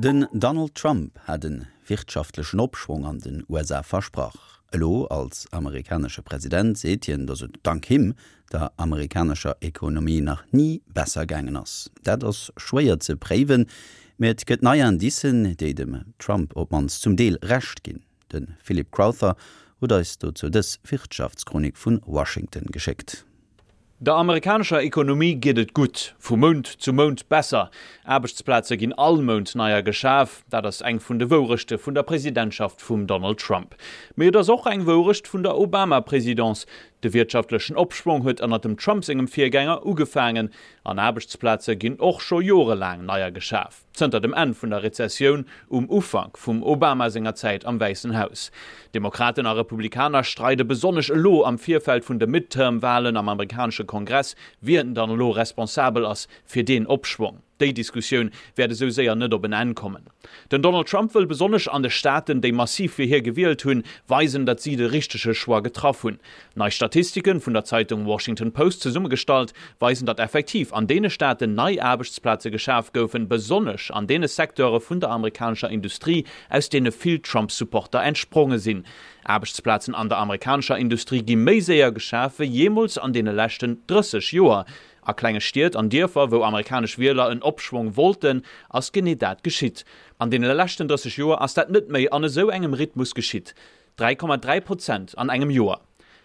Den Donald Trump hat e wirtschaftlechen Opschwong an den USA versprach. Elo als amerikanesche President seet hien, datt et dank him der amerikanescher Ekonomie nach ni besser gaangen ass. Dat ass schwéier ze préiwen, mee et gëtt nei Indicen, déi dem Trump op d'mannst zum Deel Recht ginn. De Philip Crowther huet eis dozou dës Wirtschaftschronik vu Washington geschéckt. Der amerikanescher Ekonomie geet et gutt, vu Mount zu Mount besser. Aarbechtsplaze ginn all Mount neier geschaf. Dat ass eng vun de Wourechte vun der Presidentschaft vum Donald Trump. Mee et ass och eng Wourecht vun der Obama-Presidence. De wirtschaftlechen Opschwong huet ënnert dem Trump sengem Virgänger ugefaangen. An Aarbechtsplaze ginn och scho jorelaang neier geschaf. Zënter dem Enn vun der Rezessioun um Ufank vum Obama senger Zäit am Wäissen Haus. Demokraten a Republikaner streide besonnesch elo am Virfeld vun de Midterm-Walen am amerikanesche Kongress, wien dann elo responsabel ass fir deen Opschwong. Déi Diskussioun wäert esou séier net op en Enn kommen. Den Donald Trump wëll besonnesch an de Staaten, déi massiv fir hie gewielt hunn, weisen, datt si de richtege Choix getraff hunn. Nei Statistiken, vun der Zeitung Washington Post zesummegestallt, weisen, datt effektiv an deene Staaten nei Aarbechtsplaze geschaf goufen, besonnesch an deene Secteure vun der amerikanescher Industrie, aus deene vill Trump-Supporter entspronge sinn. Aarbechtsplazen an der amerikanescher Industrie gi méi séier geschaf wéi jeemools an deene leschten 30 Joer. A klenge Stied an Dierfer, wou amerikanesch Wieler en Opschwong wollten, ass genee dat geschitt. An deene leschten 30 Joer ass dat net méi an esou engem Rhythmus geschitt. 3,3 Prozent an engem Joer.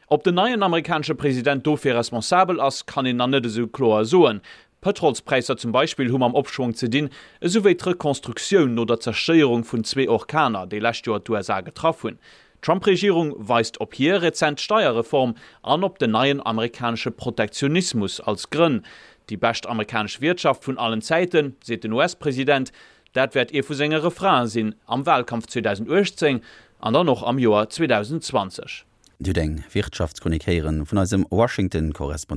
Ob den neien amerikanesche President dofir responsabel ass, kann een nach net esou kloer soen. D'Pëtrolspräisser zum Beispill hu mam Opschwong ze dinn, esou wéi d'Rekonstruktioun no der Zerstéierung vun zwee Orkaner, déi lescht Joer d'USA getraff hunn. D'Trump-Regierung weist op hir rezent Steierreform an op den neien amerikanesche Protektionismus als Grënn. Déi bescht amerikanesch Wiertschaft vun allen Zäiten, seet den US-President. Dat wäert ee vu senge Refrainen sinn am Wahlkampf 2018 an dann och am Joer 2020. Dir hutt eng Wirtschaftschronik héieren vun eisem Washington-Korrespondent.